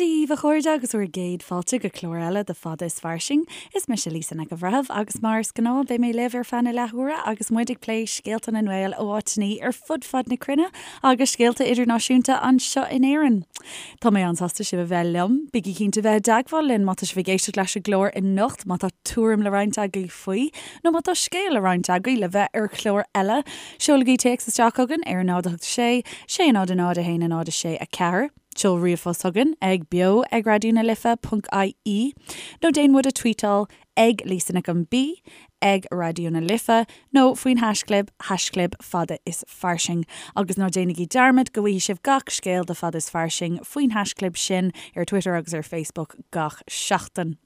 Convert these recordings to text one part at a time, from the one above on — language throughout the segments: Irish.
Dia daoibh a chairde agus bhur gcéad fáilte go clár eile de Fada is Fairsing. Is mise Lisa Nic an Bhreithimh agus mar is gnáth beidh mé libh ar feadh na leathuaire agus muid ag plé scéalta na nGael ó áiteanna ar fud fad na cruinne agus scéalta idirnáisiúnta anseo in Éirinn. Tá mé an-sásta sibh a bheith liom. Bígí cinnte bheith i dteagmháil linn má tá sibh ag éisteacht leis an gclár anocht, má tá tuairim le roinnt agaibh faoi nó má tá scéal le roinnt agaibh le bheith ar chlár eile. Seolaigí téacs isteach chugainn ar 0 8 6 6 0 0 1 0 6 4. Seol ríomhphost chugainn ag beo ag raidió na life ponc ie nó déan muid a tweetáil ag Lisa Nic an B, ag Raidió na Life nó faoin haischlib, haischlib fada is fairsing. Agus ná déanaigí dearmad go bhfaighidh sibh gach scéal de Fada is Fairsing faoin haischlib sin ar Twitter agus ar Facebook gach seachtain.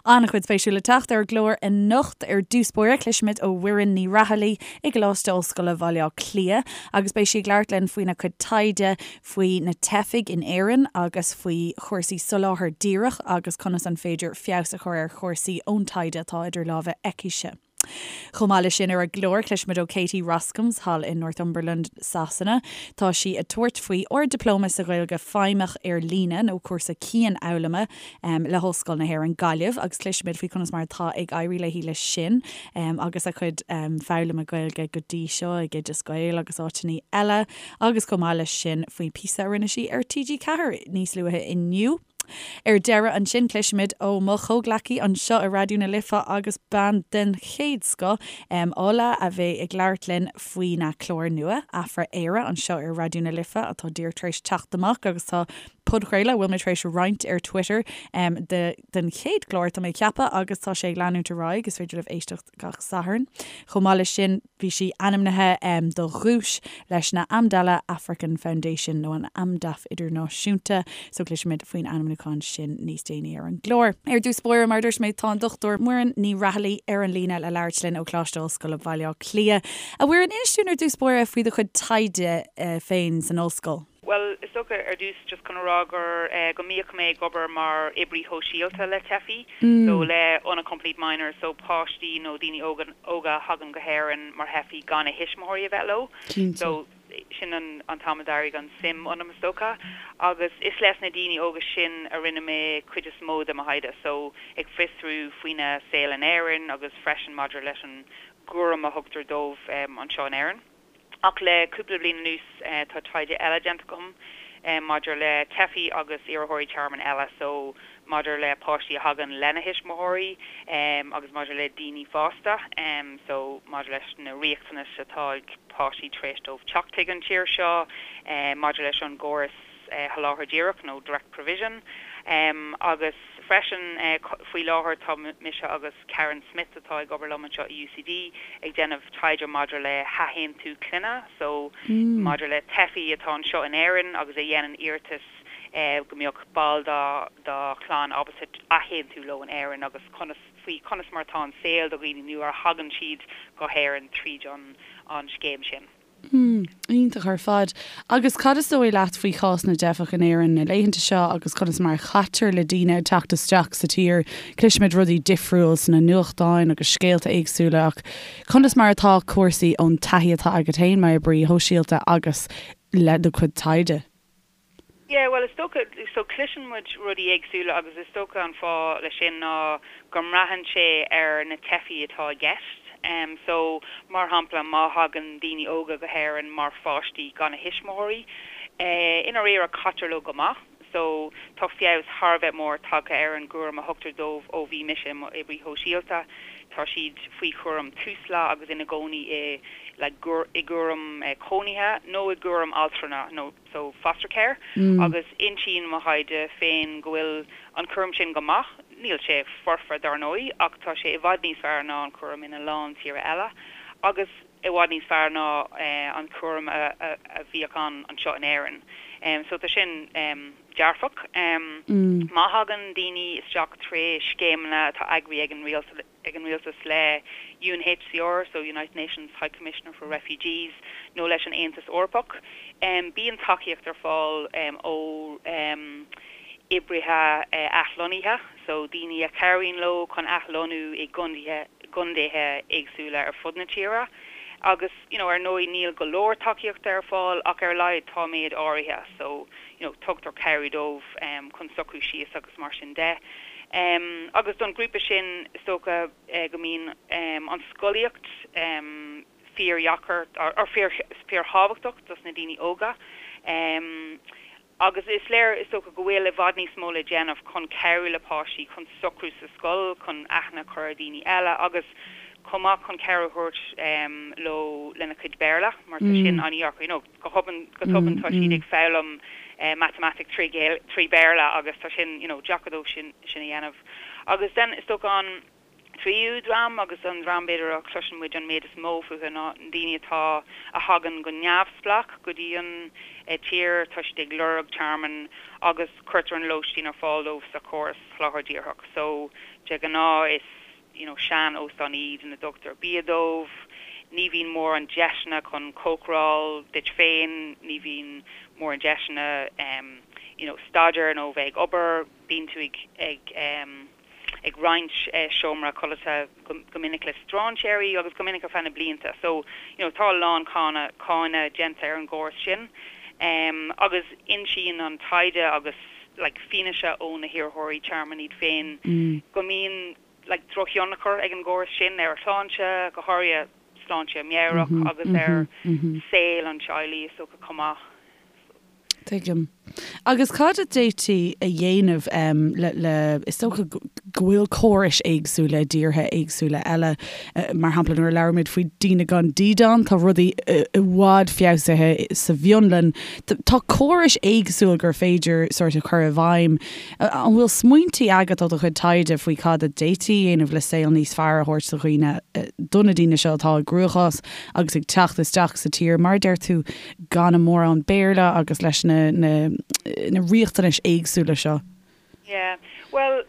An-chuid spéisiúil le teacht ar an gclár anocht. Ar dtús báire, cloisfimid ó Mhuireann Ní Raghallaigh i gColáiste Ollscoile Bhaile Átha Cliath agus beidh sí ag labhairt linn faoina cuid taighde faoi na teifigh in Éirinn agus faoi chúrsaí soláthar díreach agus conas an féidir feabhas a chur ar chúrsaí ón taighde atá idir lámha aicise. Chomh maith leis sin ar an gclár, cloisfimid ó Katie Roskams thall in Northumberland, Sasana. Tá sí ag tabhairt faoi Ard-Dioplóma sa Ghaeilge Feidhmeach ar líne, nó cúrsa cianfhoghlama, le hOllscoil na hÉireann, Gaillimh agus cloisfimid faoi conas mar atá ag éirí léi leis sin agus a cuid foghlama Gaeilge go dtí seo ag Oideas Gael agus áiteanna eile. Agus chomh maith leis sin faoin píosa a rinne sí ar TG4 níos luaithe inniu. Ar deireadh ansin cloisfimid ó mo chomhghleacaí anseo i Raidió na Life agus bean den chéad scoth, Ola, a bheidh ag labhairt linn faoina clár nua, Afra-Éire, anseo ar Raidió na Life atá díreach tar éis teacht amach agus tá podchraoladh a bhfuil mé tar éis roinnt ar Twitter de den chéad chlár tá mé ag ceapadh agus tá sé ag leanúint ar aghaidh, is féidir libh éisteacht gach Satharn. Chomh maith leis sin, bhí sí ainmnithe do dhuais leis na Amdala African Foundation, nó an Amdaf Idirnáisiúnta, so cloisfimid faoin ainmniúchán sin níos déanaí ar an gclár. Ar dtús báire, mar a dúirt mé, tá an Dr Muireann Ní Raghallaigh ar an líne le labhairt linn ó Choláiste Ollscoile Bhaile Átha Cliath. A Mhuireann, inis dúinn ar dtús báire faoi do chuid taighde féin san ollscoil. Bhuel, is dócha, ar dtús, just chun a rá gur, go mbíodh mé ag obair mar oibrí shóisialta le teifigh, so le unaccompanied minors, so páistí nó daoine óga, óga a thagann go hÉirinn mar theifigh gan a thuismitheoirí a bheith leo. So, sin an, an t-am a d'éirigh an suim ionam, is dócha. Agus is leis na daoine óga sin a rinne mé cuid is mó de mo thaighde, so ag fiosrú faoina saol in Éirinn agus freisin maidir leis an gcúram a thugtar dóibh anseo in Éirinn. Ach le cúpla bliain anuas tá taighde eile déanta agam maidir le teifigh agus iarrthóirí tearmainn eile, so maidir le páistí a thagann lena thuismitheoirí agus maidir le daoine fásta, so maidir leis na riachtanais atá ag páistí tar éis dóibh teacht chuig an tír seo, maidir leis an gcóras sholáthar díreach nó direct provision agus freisin faoi láthair tá mise agus Karen Smith atá ag obair liom anseo i UCD ag déanamh taighde maidir le hathaontú clainne so maidir le teifigh atá anseo in Éirinn agus a dhéanann iarratas go mbeadh ball dá dá chlann ábalta athaontú leo in Éirinn agus conas faoi conas mar atá an saol do dhaoine nuair a thagann siad go hÉirinn tríd an an scéim sin. Hmm, iontach ar fad. Agus cad is dóigh leat faoi chás na dteifeach in Éirinn na laethanta seo agus conas mar a chaitear le daoine ag teacht isteach sa tír? Cloisimid rudaí difriúil sna nuachtáin agus scéalta éagsúla ach conas mar atá cúrsaí ón taithí atá agat féin mar oibrí shóisialta agus le do chuid taighde? Yeah, bhuel, is dócha, so cloiseann muid rudaí éagsúla agus is dócha an fáth leis sin ná go mbraitheann sé ar na teifigh atá i gceist. So, mar shampla, má thagann daoine óga go hÉirinn mar pháistí gan a thuismitheoirí, i ndáiríre caitear leo go maith. So, tá feabhas thar a bheith mór tagtha ar an gcúram a thugtar dóibh ó bhí mise i m'oibrí shóisialta. Tá siad faoi chúram Tusla agus ina gcónaí i, like, i gcúram cónaithe nó i gcúram altrama nó. so foster care, agus insíonn mo thaighde féin go bhfuil an cúram sin go maith, níl sé foirfe dar ndóigh, ach tá sé i bhfad níos fearr ná an cúram ina lán tíortha eile, agus i bhfad níos fearr ná an cúram a bhíodh ann anseo in Éirinn. So tá sin dearfach. Má thagann daoine isteach tré scéimeanna atá eagraithe ag an rialtas, ag an rialtas le UNHCR, so United Nations High Commissioner for Refugees, nó leis an Aontas Eorpach. Bíonn tacaíocht ar fáil ó oibrithe athlonnaithe, so daoine a chabhraíonn leo chun athlonnú i gcontaetha éagsúla ar fud na tíre. Agus, you know, ar ndóigh níl go leor tacaíochta ar fáil ach ar a laghad tá méid áirithe so, you know, tugtar cabhair dóibh chun socrú síos agus mar sin de. Agus don ghrúpa sin is dócha go mbíonn an scolaíocht fíordheacair or fíorthábhachtach dos na daoine óga. Agus is léir, is dócha, go bhfuil i bhfad níos mó le déanamh chun cabhrú le páistí chun socrú sa scoil, chun aithne a chur ar dhaoine eile agus chomh maith chun cabhair a thabhairt leo lena chuid Béarla mar tá sin an-dheacair. You know, go tobann, go tobann tá siad ag foghlaim matamaitic trí Bhéarla agus tá sin, you know, deacair dóibh sin a dhéanamh. Agus then is dócha an. tríú dream, agus an dream b'fhéidir a chloiseann muid an méid is mó fúthu ná na daoine atá, a thagann go neamhspleách go dtí an tír, tá siad ag lorg tearmainn agus cuirtear an lóistín ar fáil dóibh sa chóras Soláthair Dhíreach. So, de ghnáth is, you know, sean-óstáin iad ina dtugtar bia dóibh, ní bhíonn mórán deiseanna chun cócaráil duit féin, ní bhíonn mórán deiseanna, you know, staidéar nó bheith ag obair, bíonn tú ag, ag, ag roinnt seomra codlata go minic le strainséirí agus go minic ar feadh na blianta. So, you know, tá a lán cáineadh déanta ar an gcóras sin. Agus insíonn an taighde agus like fianaise ó na hiarrthóirí tearmainn iad féin go mbíonn like drochthionchar ag an gcóras sin ar a shláinte, go háirithe sláinte meabhrach agus ar saol an teaghlaigh is dócha chomh maith. Tuigim. Agus cad a d'fhéadfaí a dhéanamh le, le, is dócha go bhfuil córais éagsúla i dtíortha éagsúla eile, mar shampla nuair a labhraímid faoi daoine gan dídean, tá rudaí i bhfad feabhsaithe sa bhFionlainn. Tá córais éagsúil gur féidir sórt a chur i bhfeidhm. An bhfuil smaointí agat ó do chuid taighde faoi cad a d'fhéadfaí a dhéanamh le saol níos fearr a thabhairt do dhaoine, do na daoine seo atá i gcruachás agus ag teacht isteach sa tír, mar a deir tú, gan a mórán Béarla agus leis na na riachtanais éagsúla seo. Yeah. Bhuel,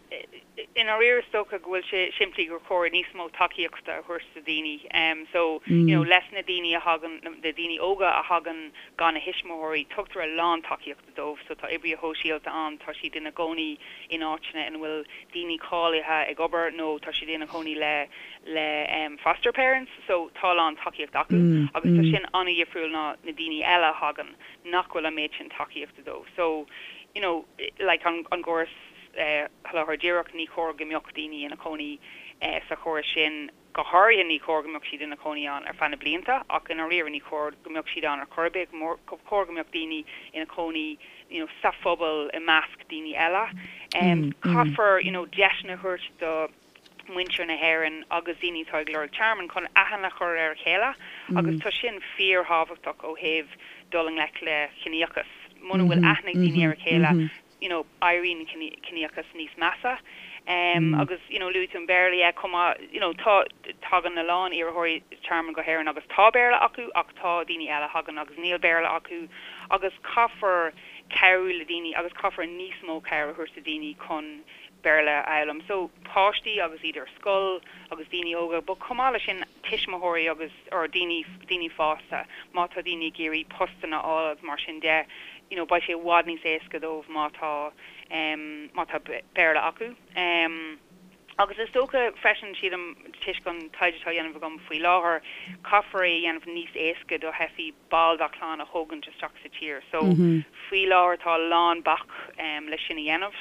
i ndáiríre is dócha go bhfuil sé simplí gur chóir níos mó tacaíochta a thabhairt do dhaoine. So, you know, leis na daoine a thagann, na daoine óga a thagann gan a thuismitheoirí, tugtar a lán tacaíochta dóibh. So tá oibrithe shóisialta ann, tá siad ina gcónaí in áiteanna ina bhfuil daoine cáilithe ag obair nó tá siad ina gcónaí le le foster parents. So tá a lán tacaíocht acu agus tá sin an-dhifriúil ná na daoine eile a thagann nach bhfuil an méid sin tacaíochta dóibh. So, you know, like an an gcóras Soláthair Dhíreach, ní chóir go mbeadh daoine ina cónaí sa chóras sin. Go háirithe ní chóir go mbeadh siad ina cónaí ann ar feadh na blianta ach i ndáiríre ní chóir go mbeadh siad ann ar chor ar bith. Ba chóir go mbeadh daoine ina cónaí you know sa phobal i measc daoine eile. Caithfear you know deiseanna a thabhairt do mhuintir na hÉireann agus daoine atá ag lorg tearmainn chun aithne a chur ar a chéile agus tá sin fíorthábhachtach ó thaobh dul i ngleic le ciníochas. Muna bhfuil aithne ag daoine ar a chéile you know, éiríonn ciníochas níos measa. Agus, you know, luaigh tú an Béarla, yeah, chomh maith, you know, tá, tagann a lán iarrthóirí tearmainn go hÉirinn agus tá Béarla acu ach tá daoine eile a thagann agus níl Béarla acu agus caithfear cabhrú le daoine agus caithfear níos mó cabhair a thabhairt do daoine chun Béarla a fhoghlaim. So, páistí agus iad ar scoil agus daoine óga, but chomh maith leis sin tuismitheoirí agus, or daoine, daoine fásta, má tá daoine ag iarraidh postanna a fháil agus mar sin de, you know, beidh sé i bhfad níos éasca dóibh má tá, em, má tá Béarla acu. Em, agus is dócha freisin, sílim, toisc an taighde atá á dhéanamh agam faoi láthair, caithfear é a dhéanamh níos éasca do theifigh ball dá clann a thógaint isteach sa tír. So, faoi láthair tá a lán bac, em, le sin a dhéanamh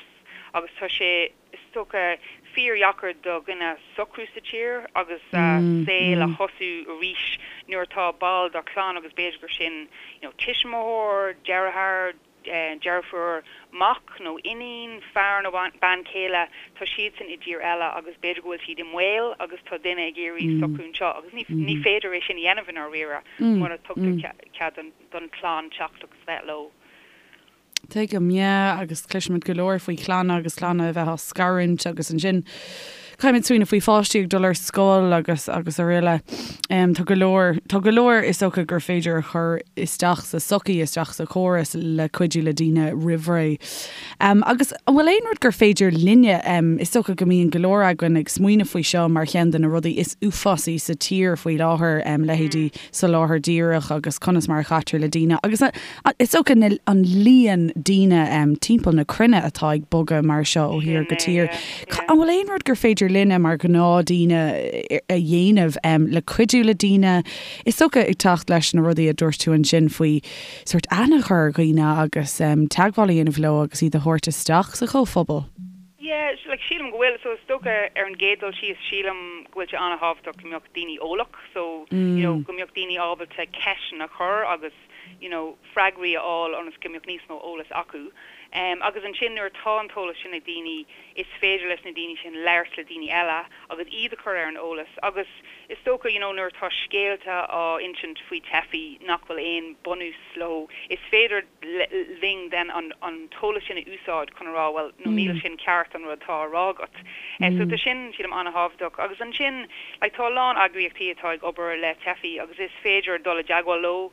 agus tá sé, is dócha, fíordheacair do dhuine socrú sa tír agus a saol a thosú arís nuair atá ball dá chlann agus b'fhéidir gur sin you know tuismitheoir, deartháir, deirfiúr, mac nó iníon, fear nó bean chéile, tá siadsan i dtír eile agus b'fhéidir go bhfuil siad i mbaol agus tá duine ag iarraidh socrú anseo agus ní féidir é sin a dhéanamh i ndáiríre mura dtugtar cead don chlann teacht agus bheith leo. Tuigim, yeah, agus cloisimid go leor faoi chlanna agus clanna a bheith á scarúint agus ansin caithfimid smaoineamh faoi pháistí ag dul ar scoil agus agus araile. Tá go leor, tá go leor is dócha gur féidir a chur isteach sa tsochaí, isteach sa chóras le cuidiú le daoine roimh ré. Agus an bhfuil aon rud gur féidir linne, is dócha go mbíonn go leor againn ag smaoineamh faoi seo mar cheann de na rudaí is uafásaí sa tír faoi láthair, leithéidí soláthar díreach agus conas mar a chaitear le daoine agus is dócha an líon daoine timpeall na cruinne atá ag bogadh mar seo ó thír go tír. An bhfuil aon rud gur féidir linne mar ghnáthdaoine a dhéanamh le cuidiú le daoine, is dócha, ag teacht leis na rudaí a dúirt tú ansin faoi sórt aithne a chur ar dhaoine agus teagmháil a dhéanamh leo agus iad a thabhairt isteach sa chomhphobal? Yeah, like sílim go bhfuil, so is dócha ar an gcéad dul síos sílim go bhfuil sé an-thábhachtach go mbeadh daoine eolach, so you know go mbeadh daoine ábalta ceisteanna a chur agus you know freagraí a fháil ionas go mbeadh níos mó eolas acu. Agus ansin nuair atá an t-eolas sin ag daoine is féidir leis na daoine sin labhairt le daoine eile agus iad a chur ar an eolas agus is dócha you know nuair atá scéalta á insint faoi teifigh nach bhfuil aon bunús leo is féidir linn then an an t-eolas sin a úsáid chun a rá bhuel no níl sin ceart an rud atá á rá agat. So tá sin sílim an-thábhachtach agus ansin like tá a lán eagraíochtaí atá ag obair le teifigh agus is féidir dul i dteagmháil leo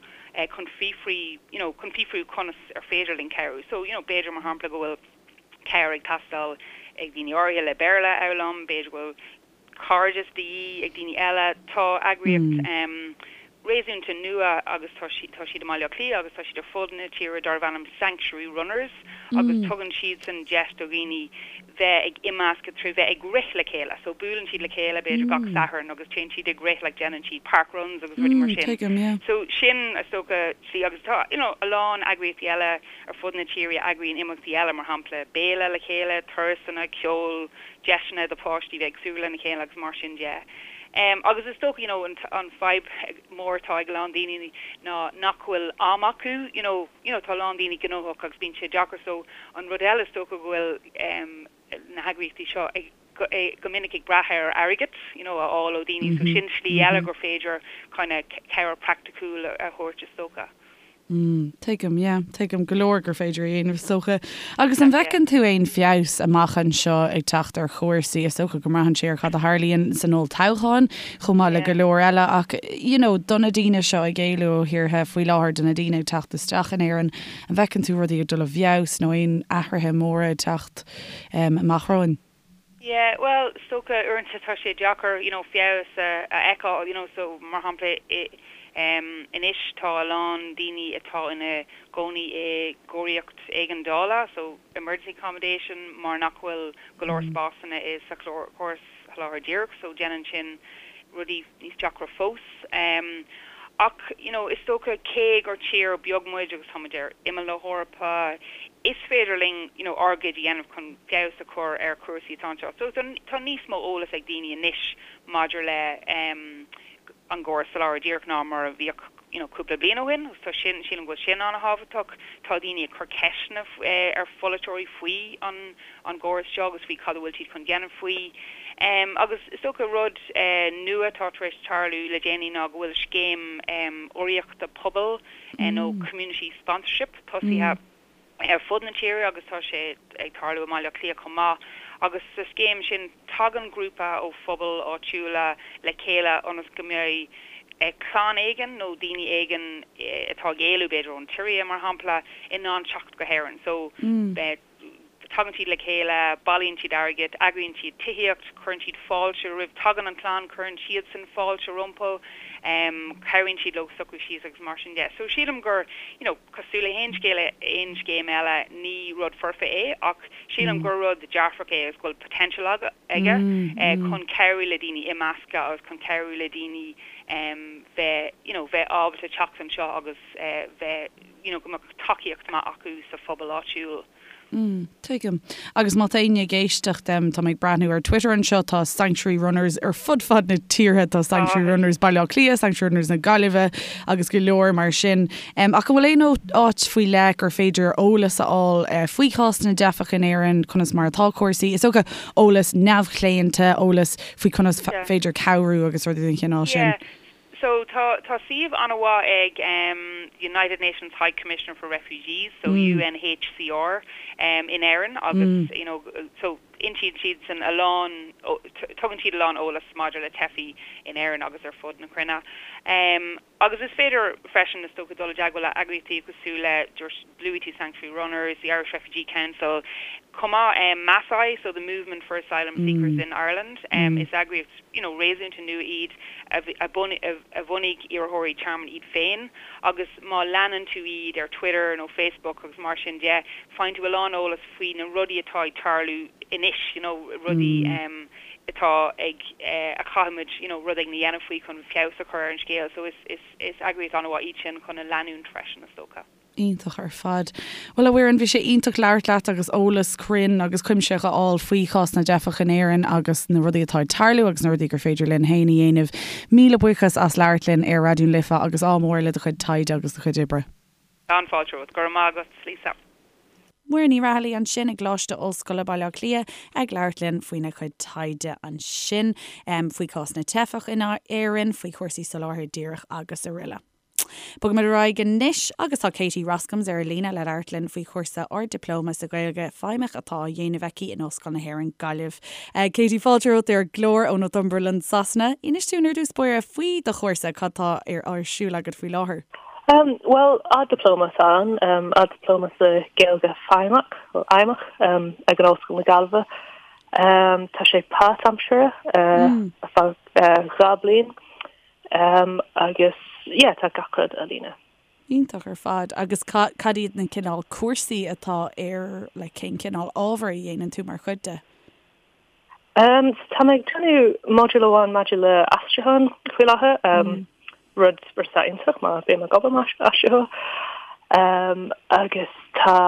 chun fiafraí you know chun fiafraí conas ar féidir linn cabhrú. So you know b'fhéidir mar shampla go bhfuil cabhair ag teastáil ag daoine áirithe le Béarla a fhoghlaim, b'fhéidir go bhfuil cairdeas de dhíth ag daoine eile. Tá eagraíocht réasúnta nua agus tá siad tá siad i mBaile Átha Cliath agus tá siad ar fud na tíre darb ainm Sanctuary Runners agus tugann siadsan deis do dhaoine bheith ag imeascadh trí bheith ag rith le chéile. So buaileann siad le chéile b'fhéidir gach Satharn agus téann siad ag rith like déanann siad park runs agus rudaí mar sin. So sin is dócha slí agus tá you know a lán eagraíochtaí eile ar fud na tíre a eagraíonn imeachtaí eile, mar shampla béile le chéile, turasanna, ceol, deiseanna do pháistí bheith ag súgradh lena chéile agus mar sin de. Agus is dócha you know an an fadhb mór atá ag a lán daoine ná nach bhfuil am acu you know you know tá a lán daoine gnóthach agus bíonn sé deacair so an rud eile is dócha go bhfuil na heagraíochtaí seo ag go minic ag brath ar airgead you know a fháil ó daoine so sin slí eile gur féidir kind of cabhair praiticiúil a thabhairt is dócha. Mm, tuigim, yeah, tuigim go leor gur féidir a dhéanamh is dócha. Agus an bhfeiceann tú aon feabhas amach anseo ag teacht ar chúrsaí? Is dócha go mbraitheann sé ar cad a tharlaíonn san olltoghchán chomh maith le go leor eile ach, you know, do na daoine seo ag éalú ó thíortha faoi láthair, do na daoine ag teacht isteach in Éirinn, an bhfeiceann tú rudaí ag dul i bhfeabhas nó aon athruithe móra ag teacht amach romhainn? Yeah, bhuel, is dócha uaireanta tá sé deacair, you know, feabhas a fheiceáil, you know, so mar shampla i, em, anois tá a lán daoine atá ina gcónaí i gcóiríocht éigeandála, so emergency accommodation, mar nach bhfuil go leor spásanna i sa chóras Soláthair Dhíreach, so déanann sin rudaí níos deacra fós. Ach, you know, is dócha cé gur tír beag muid agus tá muid ar imeall na hEorpa, is féidir linn, you know, ár gcuid a dhéanamh chun feabhas a chur ar chúrsaí atá anseo. So tá níos mó eolas ag daoine anois maidir le an gcóras Soláthair Dhíreach ná mar a bhíodh, you know, cúpla bliain ó shin agus tá sin, sílim go bhfuil sin an-thábhachtach. Tá daoine ag cur ceisteanna ar pholaiteoirí faoi an an gcóras seo agus faoi cad a bhfuil siad chun déanamh faoi. Agus is dócha rud nua atá tar éis tarlú le déanaí ná go bhfuil scéim urraíochta pobail nó community sponsorship tosaithe ar fud na tíre agus tá sé ag tarlú i mBaile Átha Cliath chomh maith. Agus sa scéim sin tagann grúpa ó phobail áitiúla le chéile ionas go mbeidh clann éigin nó daoine éigin atá ag éalú b'fhéidir ón tSiria mar shampla in ann teacht go hÉirinn. So Tagann siad le chéile, bailíonn siad airgead, eagraíonn siad tithíocht, cuireann siad fáilte roimh, tagann an chlann, cuireann siadsan fáilte rompu, cabhraíonn siad leo socrú síos agus mar sin de. So sílim gur, you know, cosúil le haon scéal, aon scéim eile, ní rud foirfe é ach sílim gur rud dearfach é agus go bhfuil potential aige chun cabhrú le daoine imeascadh agus chun cabhrú le daoine bheith, you know, bheith ábalta teacht anseo agus bheith, you know, go mbeadh tacaíocht maith acu sa phobal áitiúil. Mm, tuigim. Agus má tá éinne ag éisteacht, tá mé ag breathnú ar Twitter anseo, tá Sanctuary Runners ar fud fad na tíre, tá Sanctuary Runners Baile Átha Cliath, Sanctuary Runners na Gaillimhe agus go leor mar sin. Ach an bhfuil aon áit faoi leith gur féidir eolas a fháil eh, faoi chás na dteifeach in Éirinn, conas mar atá cúrsaí? Is dócha eolas neamhchlaonta, eolas faoi conas féidir cabhrú agus rudaí den chineál sin. Yeah. So tá tá suíomh an-mhaith ag em United Nations High Commissioner for Refugees, so UNHCR em in Éirinn agus you know so insíonn siadsan a lán tugann siad a lán eolas maidir le teifigh in Éirinn agus ar fud na cruinne. Em agus is féidir freisin is dócha dul i dteagmháil le eagraíochtaí cosúil le luaigh tú Sanctuary Runners, the Irish Refugee Council, chomh maith em MASI, so the Movement for Asylum Seekers in Ireland, em is eagraíocht you know réasúnta nua iad a a a bhunaigh iarrthóirí tearmainn iad féin agus má leanann tú iad ar Twitter nó Facebook agus mar sin de, faigheann tú a lán eolas faoi na rudaí atá ag tarlú anois, you know rudaí em. atá ag a chaithfimid you know rud éigin a dhéanamh faoi chun feabhas a chur ar an scéal so is is is eagraíocht an-mhaith iad sin chun a leanúint freisin is dócha. Iontach ar fad. Bhuel a Mhuireann, bhí sé iontach labhairt leat agus eolas cruinn agus cuimsitheach a fháil faoi chás na dteifeach in Éirinn agus na rudaí atá ag tarlú agus na rudaí gur féidir linn féin a dhéanamh. Míle buíochas as labhairt linn ar Raidió na Life agus ádh mór le do chuid taighde agus do chuid oibre. An-fháilte romhat. Go raibh maith agat, Lisa. Muireann Ní Raghallaigh ansin i gColáiste Ollscoile Baile Átha Cliath ag labhairt linn faoina cuid taighde ansin faoi chás na dteifeach in Éirinn, faoi chúrsaí soláthair díreach agus aroile. Bogaimid ar aghaidh anois agus tá Katie Roskams ar an líne le labhairt linn faoi chúrsa Ard-Dioplóma sa Ghaeilge Feidhmeach atá á dhéanamh aici in Ollscoil na hÉireann, Gaillimh. Katie, fáilte romhat ar an gclár ó Northumberland, Sasana. Inis dúinn ar dtús báire faoi do chúrsa, cad tá ar siúl agat faoi láthair? Bhuel, Ard-Dioplóma atá ann, Ard-Dioplóma sa Ghaeilge Feidhmeach, nó Fheidhmeach, ag an Ollscoil na Gaillimhe. Tá sé páirtaimseartha ar feadh 2 bliain agus yeah, tá gach rud ar líne. Iontach ar fad. Agus cad iad na cineál cúrsaí atá ar, like, cén cineál ábhar a dhéanann tú mar chuid de? Um, so tá mé ag déanamh modúl amháin maidir le aistriúchán faoi láthair, um, rud rud atá iontach mar bím ag obair mar aistritheoir. Um, agus tá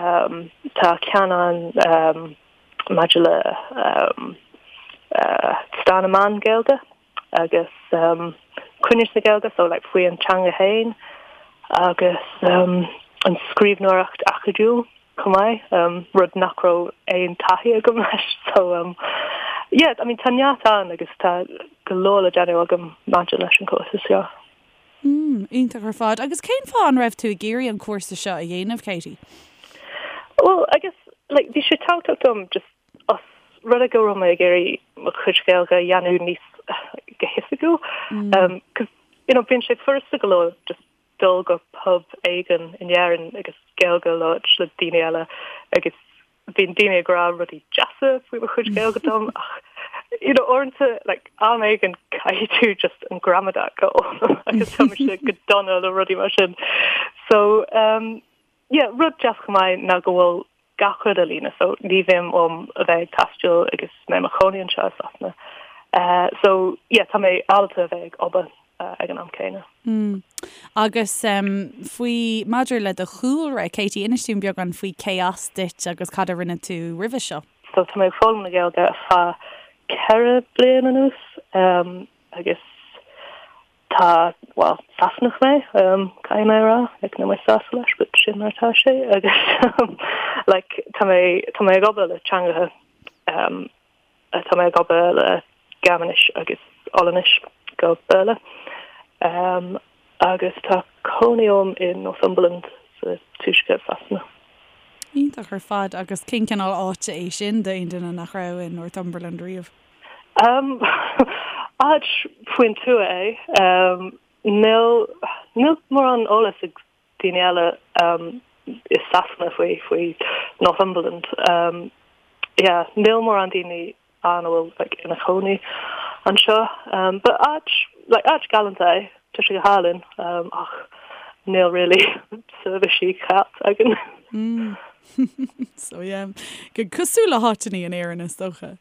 um, tá ceann ann um, maidir le um, uh, stair na meán Gaeilge agus um, cruinneas na Gaeilge, so like, faoi an teanga féin agus um, an scríbhneoireacht acadúil. chomh maith, rud nach raibh aon taithí agam leis. So yeah, I mean tá neart ann agus tá go leor le déanamh agam maidir leis an cúrsa seo. Mm, iontach ar fad. Agus cén fáth an raibh tú ag iarraidh an cúrsa seo a dhéanamh, Katie? Well, I guess, like, bhí sé tábhachtach dom just os rud é go raibh mé ag iarraidh mo chuid Gaeilge a dhéanamh níos go hoifigiúil. Um, cos, you know, bíonn sé furasta go leor just dul go pub éigin in Éirinn agus Gaeilge a labhairt le daoine eile agus bíonn daoine ag rá rudaí deasa faoi mo chuid Gaeilge dom ach you know uaireanta like am éigin caithfidh tú just an gramadach a fhoghlaim agus tá mise go dona le rudaí mar sin. So um yeah rud deas chomh maith ná go bhfuil gach rud ar líne so ní bhíonn orm a bheith ag taisteal agus mé i mo chónaí anseo i Sasana. So yeah tá mé ábalta a bheith ag obair ag an am céanna. Mm. Agus faoi, maidir le do chúlra, Katie, inis dúinn beagán faoi cé as duit agus cad a rinne tú roimhe seo. So tá mé ag foghlaim na Gaeilge ar feadh 4 bliain anuas agus Tá, bhuel, Sasanach mé, caithfidh mé a rá, like níl mé sásta leis, but sin mar atá sé agus like tá mé, tá mé ag obair le teangacha, tá mé ag obair le Gearmáinis agus Ollainnis go Béarla agus tá cónaí orm i Northumberland sa tuaisceart Sasana. Iontach ar fad agus cén cineál áite é sin d'aon duine nach raibh i Northumberland riamh? Áit faoin tuath é. Níl níl mórán eolas ag daoine eile i Sasana faoi faoi Northumberland. Yeah, níl mórán daoine ann a bhfuil like ina chónaí anseo. But áit like áit galánta é. Tá sé go hálainn ach níl really seirbhísí ceart againn. So yeah, go cosúil le háiteanna in Éirinn is dócha.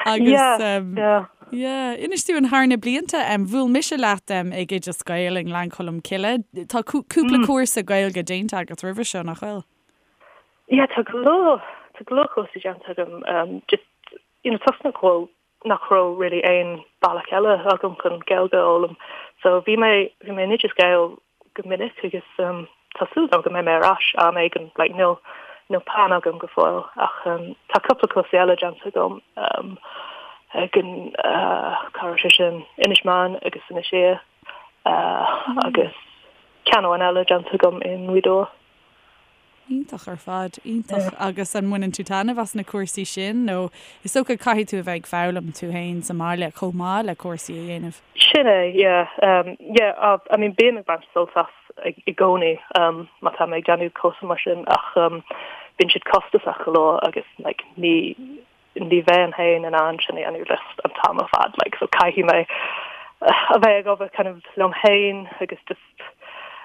Agus Yeah, um, yeah. yeah, inis dúinn thar na blianta, um, bhuail mise leat um, ag Oideas Gael i nGleann Cholm Cille. Tá cúpla mm. cúrsa Gaeilge déanta agat roimhe seo nach bhfuil? Yeah, tá go leor tá go leor cúrsaí déanta agam um, just you know, toisc nach bhfuil nach raibh really aon bealach eile agam chun Gaeilge a fhoghlaim. So bhí mé bhí mé in Oideas Gael go minic agus um, tá súil agam go mbeidh mé ar ais am éigin like níl níl plean agam go fóill ach um, tá cúpla cúrsaí eile déanta agam um, ag an uh, cá raibh sé sin Inis Meáin agus Inis Oírr uh, mm. agus ceann amháin eile déanta agam i nGaoth Dobhair. Iontach ar fad, iontach. Agus an mbaineann tú taitneamh as na cúrsaí sin nó is dócha caithfidh tú a bheith ag foghlaim tú féin sa mbaile chomh maith le cúrsaí a dhéanamh? Sin é, yeah. Yeah, I mean bím ag baint sult as i gcónaí má tá mé ag déanamh cúrsa mar sin ach bíonn siad costasach go leor agus like ní ní bheinn féin in ann sin a dhéanamh just an t-am ar fad like so caithfidh mé a bheith ag obair kind of liom féin agus just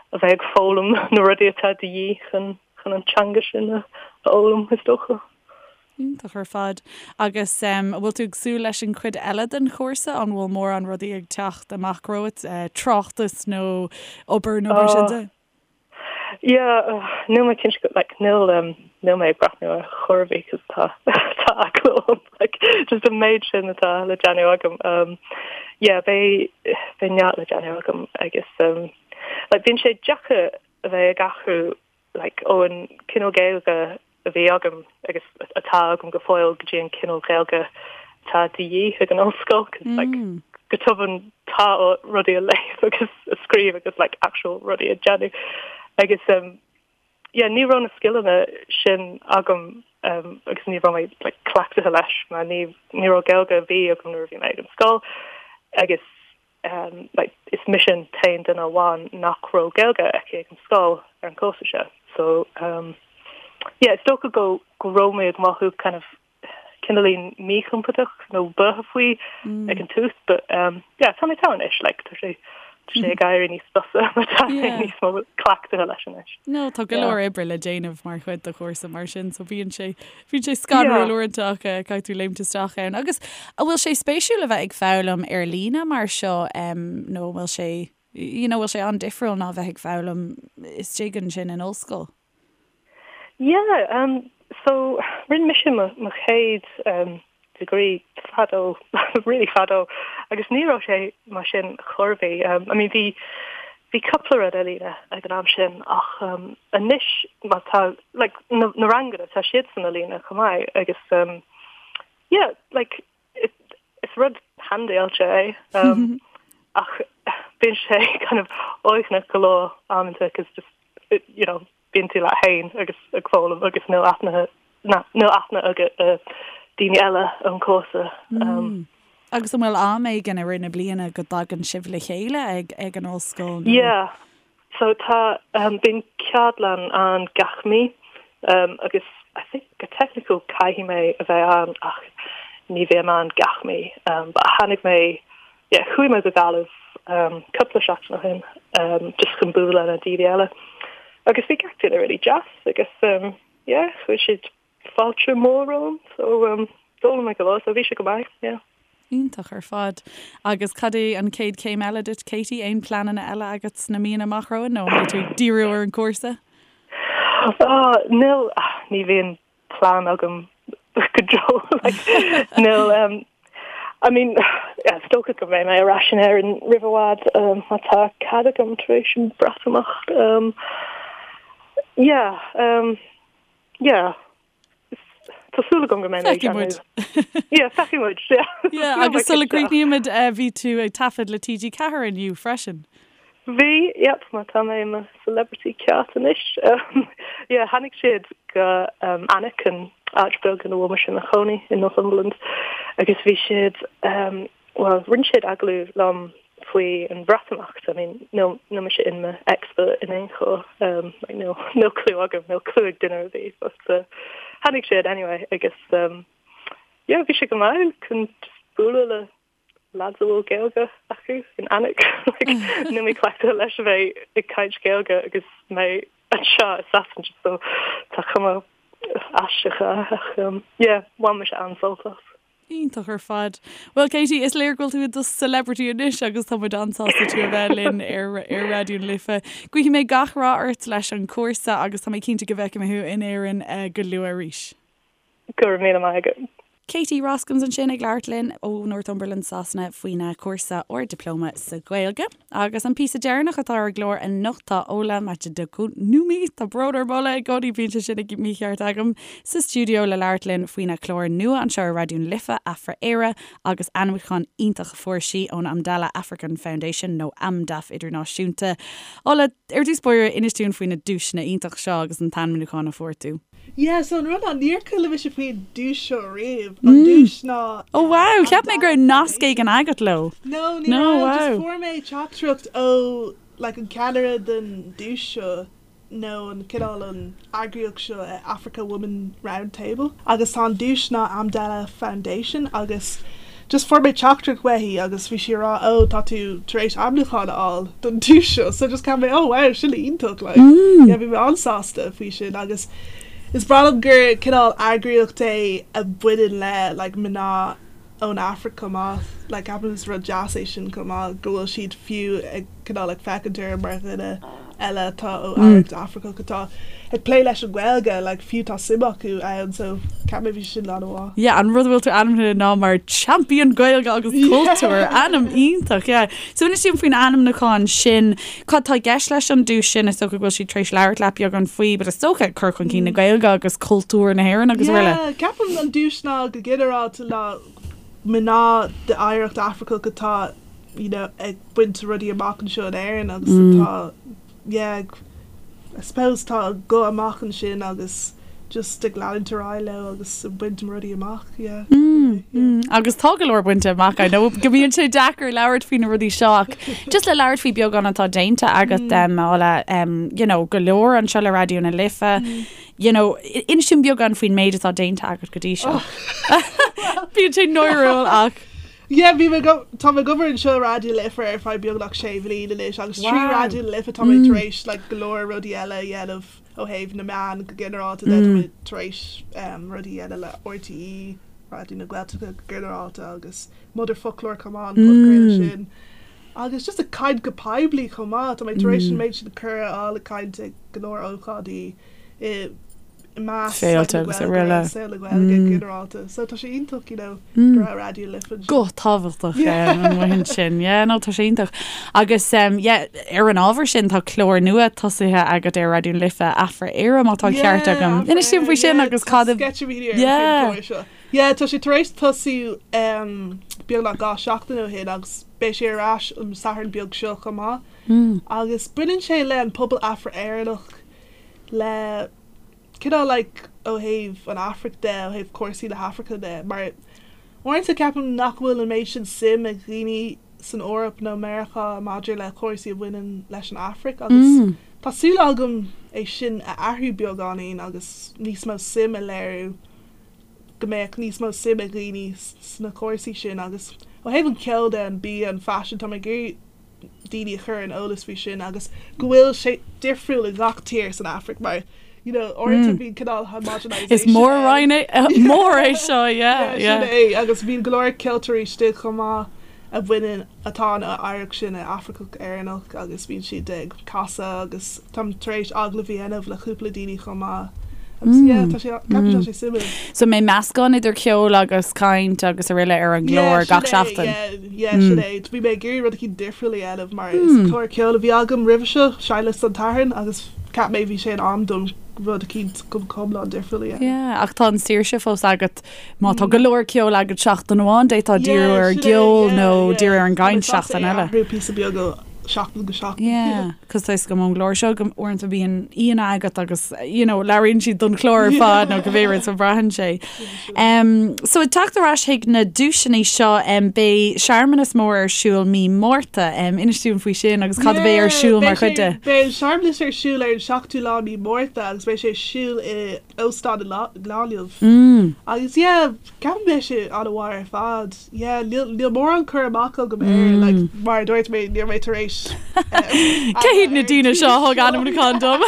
a bheith ag foghlaim na rudaí atá de dhíth chun chun an teanga sin a fhoghlaim is dócha. Iontach ar fad. Agus an bhfuil tú ag súil leis an chuid eile den chúrsa? An bhfuil mórán rudaí ag teacht amach romhat, tráchtas nó obair nó mar sin de? Yeah, níl mé cinnte go, like, níl, níl mé ag breathnú ar chor ar bith 'cause tá, tá eagla orm, like, just an méid sin atá le déanamh agam. Um, yeah, beidh, beidh neart le déanamh agam agus, um, like, bíonn sé deacair a bheith ag athrú like, ón cineál Gaeilge a bhí agam agus atá agam go fóill go dtí an cineál Gaeilge atá de dhíth ag an ollscoil 'cause like go tobann tá rudaí a léamh agus a scríobh agus like actual rudaí a dhéanamh agus um, yeah, ní raibh na scileanna sin agam um, agus ní raibh mé like, cleachtaithe leis mar ní, ní raibh Gaeilge ar bith agam nuair a bhí mé ag an scoil agus um, like, is mise an t-aon duine amháin nach raibh Gaeilge aici ag an scoil ar an cúrsa seo. So, um, yeah, is dócha go, go raibh mé ag mothú kind of cineáilín míchompordach nó buartha faoi mm. ag an tús, but um, yeah, tá mé togha anois, like, tá sé tá sé ag éirí níos fusa mar tá mé níos mó cleachtaithe leis anois. No, tá go leor oibre le déanamh mar chuid de chúrsa mar sin, so bíonn sé Bíonn sé scanrúil uaireanta ach caithfidh tú léimt isteach ann. Agus an bhfuil sé spéisiúil a bheith ag foghlaim ar líne mar seo nó an bhfuil sé, you know, bhfuil sé an-difriúil ná bheith ag foghlaim istigh ansin in ollscoil? Yeah, um, so rinne mise mo, mo chéad um, degree fadó, really fadó, agus ní raibh sé mar sin chor ar bith. Um, I mean, bhí, bhí cúpla rud ar líne ag an am sin ach um, anois má tá, like, na, na ranganna, tá siadsan ar líne chomh maith agus um, yeah, like, it, is rud handáilte é um, ach bíonn sé kind of uaigneach go leor amanta cos just, you know, bíonn tú leat féin agus ag foghlaim agus níl aithne níl aithne agat ar daoine eile ón cúrsa. Agus an bhfuil am éigin i rith na bliana go dtagann sibh le chéile ag ag an ollscoil nó? Yeah, so tá bíonn ceardlann ann gach mí agus I think go teicniúil caithfidh mé a bheith ann ach ní bhím ann gach mí. But tháinig mé Yeah, chuaigh mé go Gaillimh cúpla seachtain ó shin just chun bualadh le daoine eile agus bhí gach duine really deas agus yeah, chuir siad fáilte mór romham so d'fhoghlaim mé go leor so bhí sé go maith, yeah. Iontach ar fad. Agus cad é an chéad chéim eile duit, Katie? Aon pleananna eile agat sna míonna amach romhainn nó an mbeidh tú ag díriú ar an gcúrsa? Oh, níl, ní bhíonn plean agam go deo like níl um, I mean yeah, is dócha go mbeidh mé ar ais in Éirinn roimh i bhfad um, má tá cead agam tar éis an Breatimeacht um, yeah um, yeah Tá súil agam go mbeidh mé ag Feicfidh muid. Yeah, feicfidh muid, yeah. Yeah, agus sula gcríochnaímid eh, bhí tú ag taifead le TG4 inniu freisin. Bhí, yep, mar tá mé i mo celebrity ceart anois. Yeah, tháinig siad go Alnwick, an áit beag ina bhfuil mise i mo chónaí in Northumberland, agus bhí siad, bhuel, rinne siad agallamh liom faoi an Bhreatimeacht. I mean, níl, níl mise in mo expert in aon chor, like, níl, níl clue agam, níl clue ag duine ar bith, but tháinig siad anyway agus yeah, bhí sé go maith chun just bualadh le lads a bhfuil Gaeilge acu in Alnwick. Níl mé cleachtaithe leis a bheith ag caint Gaeilge agus mé anseo i Sasana so tá cuma aisteach ach yeah, bhain mise an-sult as. Iontach ar fad. Bhuel Katie, is léir go bhfuil tú i do celebrity anois agus tá muid an-sásta tú a bheith linn ar ar Raidió na Life. Guífidh mé gach rath ort leis an chúrsa agus tá mé cinnte go bhfeicfidh mé thú in Éirinn go luath arís. Go raibh míle maith agat. Katie Roskams ansin ag labhairt linn ó Northumberland, Sasana faoina cúrsa Ard-Dioplóma sa Ghaeilge. Agus an píosa deireanach atá ar an gclár anocht tá Ola Majekodunmi, tá brón orm Ola, i gcónaí bíonn sé sin mícheart agam, sa stiúideo le labhairt linn faoina clár nua anseo ar Raidió na Life, Afra-Éire, agus ainmniúchán iontach a fuair sí ón Amdala African Foundation nó Amdaf Idirnáisiúnta. Ola, ar dtús báire, inis dúinn faoi na duaiseanna iontach seo agus an t-ainmniúchán a fuair tú. Yeah, so an rud ná níor chuala mise faoin duais seo riamh. An duais ná Oh wow, cheap mé go raibh nasc éigin agat leo. No, ní raibh, just fuair mé teachtaireacht ó like an ceannaire den duais seo nó an cineál an eagraíocht seo Africa Women Round Table agus tá an duais ná Amdala Foundation agus just fuair mé teachtaireacht uaithi agus bhí sí ag rá oh tá tú tar éis ainmniúchán a fháil don duais seo so just cheap mé oh wow sin iontach like yeah bhí mé an-sásta faoi sin agus. Is breá liom gur cineál eagraíocht é a bhaineann le like mná ón Afraic chomh maith. Like ceapaim is rud deas é sin chomh maith go bhfuil siad fiú ag cineál ag féachaint orm mar dhuine eile atá ó oidhreacht Afracach atá ag plé leis an Ghaeilge, like fiú tá suim acu ann so ceapaim bhí sin an-mhaith. Yeah, an rud a bhfuil tú ainmnithe ná mar Champion Gaeilge agus Cultúir, ainm iontach, yeah. So inis dúinn faoin ainmniúchán sin, cad tá i gceist leis an duais sin, is dócha go bhfuil siad tar éis labhairt leat beagán faoi, but is dócha cur chun cinn na Gaeilge agus cultúr na hÉireann agus araile. Yeah, ceapaim an duais ná go ginearálta ná mná d'oidhreacht Afracach atá you know, ag baint rudaí amach anseo in Éirinn agus atá, yeah, ag, I suppose tá a guth amach ansin agus just ag leanúint ar aghaidh leo agus ag baint rudaí amach, yeah. Mm, agus tá go leor bainte amach, I know go mbíonn sé deacair labhairt faoi na rudaí seo ach just le labhairt faoi beagán atá déanta agat um, Ála, um, you know, go leor anseo le Raidió na Life, you know, inis dúinn beagán faoin méid atá déanta agat go dtí seo. Bíonn sé náiriúil ach. Yeah, bhí mé go, tá mé ag obair anseo i Raidió na Life ar feadh beagnach sé bhliain anois agus trí Raidió na Life tá mé tar éis like go leor rudaí eile a dhéanamh ó thaobh na meán go ginearálta de, tá mé tar éis um, rudaí a dhéanamh le RTÉ, Raidió na Gaeltachta go ginearálta agus Motherfoclóir chomh maith, an podchraoladh sin. Agus just ag caint go poiblí chomh maith, tá mé tar éis an méid sin cuireadh a fháil ag caint ag go leor ócáidí i i measc Féilte agus araile. saol na Gaeilge go ginearálta. So tá sé iontach, you know, go raibh Raidió na Life anseo. Guth tábhachtach an bhuíon sin. Yeah, no, tá sé iontach. Agus um, yeah, ar an ábhar sin tá clár nua tosaithe agat ar Raidió na Life, Afra-Éire, má tá an ceart agam. Inis dúinn faoi sin agus cad a... Sceitimíní ar an chlár seo. Yeah, tá sé tar éis tosú um, beagnach 2 seachtain ó shin agus beidh sé ar ais an Satharn beag seo chomh maith. Agus baineann sé le an pobal Afra-Éireannach le cineál like ó thaobh an Afraic de, ó thaobh cúrsaí na hAfraice de, mar uaireanta ceapaim nach bhfuil an méid sin suim ag dhaoine san Eoraip nó Meiriceá maidir le cúrsaí a bhaineann leis an Afraic agus tá súil agam é sin a athrú beagáinín agus níos mó suim a léiriú, go mbeadh níos mó suim ag dhaoine sna cúrsaí sin agus ó thaobh an ceoil de, an bia, an faisean, tá mé ag iarraidh daoine a chur ar an eolas faoi sin agus go bhfuil sé difriúil i gach tír san Afraic mar you know uaireanta bíonn cineál homogenisation Is mór-roinn é mór é seo, yeah, yeah. Sin é agus bíonn go leor ceoltóirí istigh chomh maith a bhaineann atá an oidhreacht sin Afracach Éireannach agus bíonn siad ag casadh agus táim tar éis agallamh a dhéanamh le cúpla daoine chomh maith agus yeah tá sé ceapaim tá sé suimiúil. So an mbeidh meascán idir ceol agus caint agus araile ar an gclár gach seachtain? Yeah, sin é. Bhí mé ag iarraidh rud eicínt difriúil a dhéanamh mar is clár ceoil a bhí agam roimhe seo, Seinnliosta an tSathairn, agus cheap mé bhí sé in am dom rud eicínt go hiomlán difriúil a dhéanamh. Yeah, ach tá an saoirse fós agat má tá go leor ceoil agat seachtain amháin, d'fhéadfá díriú ar an gceol nó díriú ar an gcaint seachtain eile. Tá mé sásta é a athrú píosa beag ó sheachtain go seachtain. Yeah. Cos tá 'fhios agam ón gclár seo go uaireanta bíonn aíonna agat agus you know labhraíonn siad don chlár ar fad nó cibé rud so braitheann sé. Um, so ag teacht ar ais chuig na duaiseanna seo um, beidh searmanas mór ar siúl mí Márta. Um, inis dúinn faoi sin agus cad a bheidh ar siúl mar chuid de. Beidh an searmanas ar siúl ar an seachtú lá mí Márta agus beidh sé ar siúl i Óstán i nGaillimh. Agus yeah, ceapaim beidh sé an-mhaith ar fad. Yeah, níl níl mórán cur amach agam air, like, mar a dúirt mé, níl mé tar éis Cé hiad na daoine seo a thug ainmniúchán dom?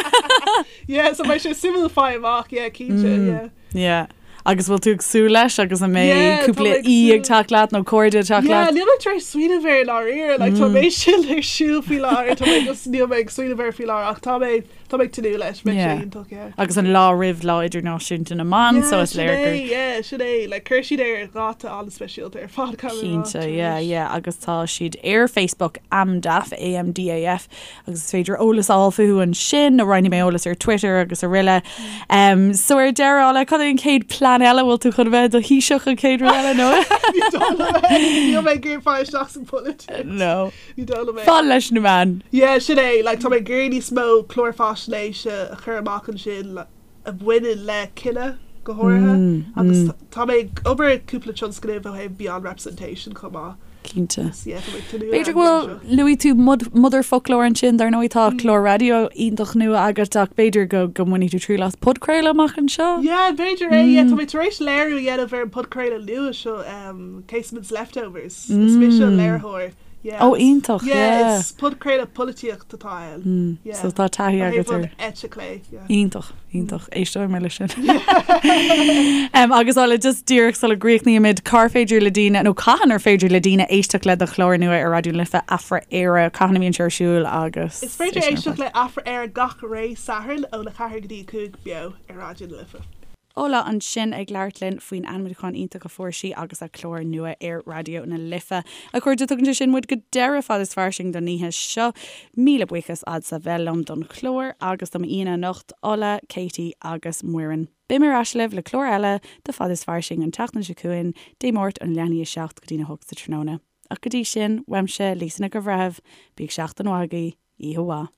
Yeah, so beidh sé suimiúil fáil amach, yeah, cinnte, yeah. Yeah. Agus bhfuil tú ag súil leis agus an mbeidh Yeah, tá cúpla mé ag aoi ag teacht leat nó cairde ag teacht Yeah, leat? níl mé tar éis smaoineamh air i ndáiríre, like, tá mé sin ar siúl faoi láthair, tá mé just níl mé ag smaoineamh air faoi láthair ach tá mé Tá mé ag tnúth leis, beidh sé iontach, yeah. Agus an lá roimh Lá Idirnáisiúnta na mBan, so is léir gur. Yeah, sin é, like chuir siad é ar dháta an-speisialta ar fad, caithfidh mé a rá. Cinnte, yeah, yeah, agus tá siad ar Facebook, AMDAF, A-M-D-A-F, agus is féidir eolas a fháil fúthu ansin, nó roinnfidh mé eolas ar Twitter agus araile. Um, so ar deireadh, Ála, cad é an chéad plean eile? Bhfuil tú chun a bheith i do Thaoiseach an chéad rud eile, nó? Ní dóigh liom é, níl mé ag iarraidh fáil isteach san pholaitíocht. No. Ní dóigh liom é. Fan leis na meáin. Yeah, sin é. Like, tá mé ag iarraidh níos mó clár faisnéise a chur amach ansin a bhaineann le cine, go háirithe. Agus tá mé ag obair ar cúpla tionscnamh ó thaobh Beyond Representation chomh maith. Cinnte. Agus yeah, tá mé ag tnúth B'fhéidir go bhfuil, luaigh tú Motherfoclóir ansin, dar ndóigh tá clár raidió iontach nua agat ach b'fhéidir go go mbainfidh tú triail as podchraoladh amach anseo? Yeah, b'fhéidir é. Yeah, tá mé tar éis léiriú a dhéanamh ar an podchraoladh nua seo, um, Casement's Leftovers. Is mise an léiritheoir. Yeah. Ó iontach, Yeah, yeah. is podchraoladh polaitíocht atá ann. Yeah. So tá taithí Ó agat thaobh ar. an eite clé, yeah. Iontach, iontach. Éisteoidh mé leis sin. Em, agus Ola, just díreach sula gcríochnaímid, cár féidir le daoine, nó cathain ar féidir le daoine éisteacht le do chlár nua ar Raidió na Life, Afra-Éire, cathain a bhíonn sé ar siúl agus. Is féidir éisteacht le Afra-Éire gach ré Satharn óna 4 go dtí 5 beo ar Raidió na Life. Ola ansin ag labhairt linn faoin ainmniúchán iontach a fuair sí agus a clár nua ar Raidió na Life. A chairde, tugann sé sin muid go deireadh Fad is Fairsing don oíche seo. Míle buíochas agatsa bheith liom don chlár agus do m'aíonna anocht, Ola, Katie agus Muireann. Beidh mé ar ais libh le clár eile de Fad is Fairsing an tseachtain seo chugainn, Dé Máirt ón leath i ndiaidh a 7 go dtí'n 8 sa tráthnóna. Ach go dtí sin, uaimse, Lisa Nic an Bhreithimh, bíodh seachtain mhaith agaibh, oíche mhaith.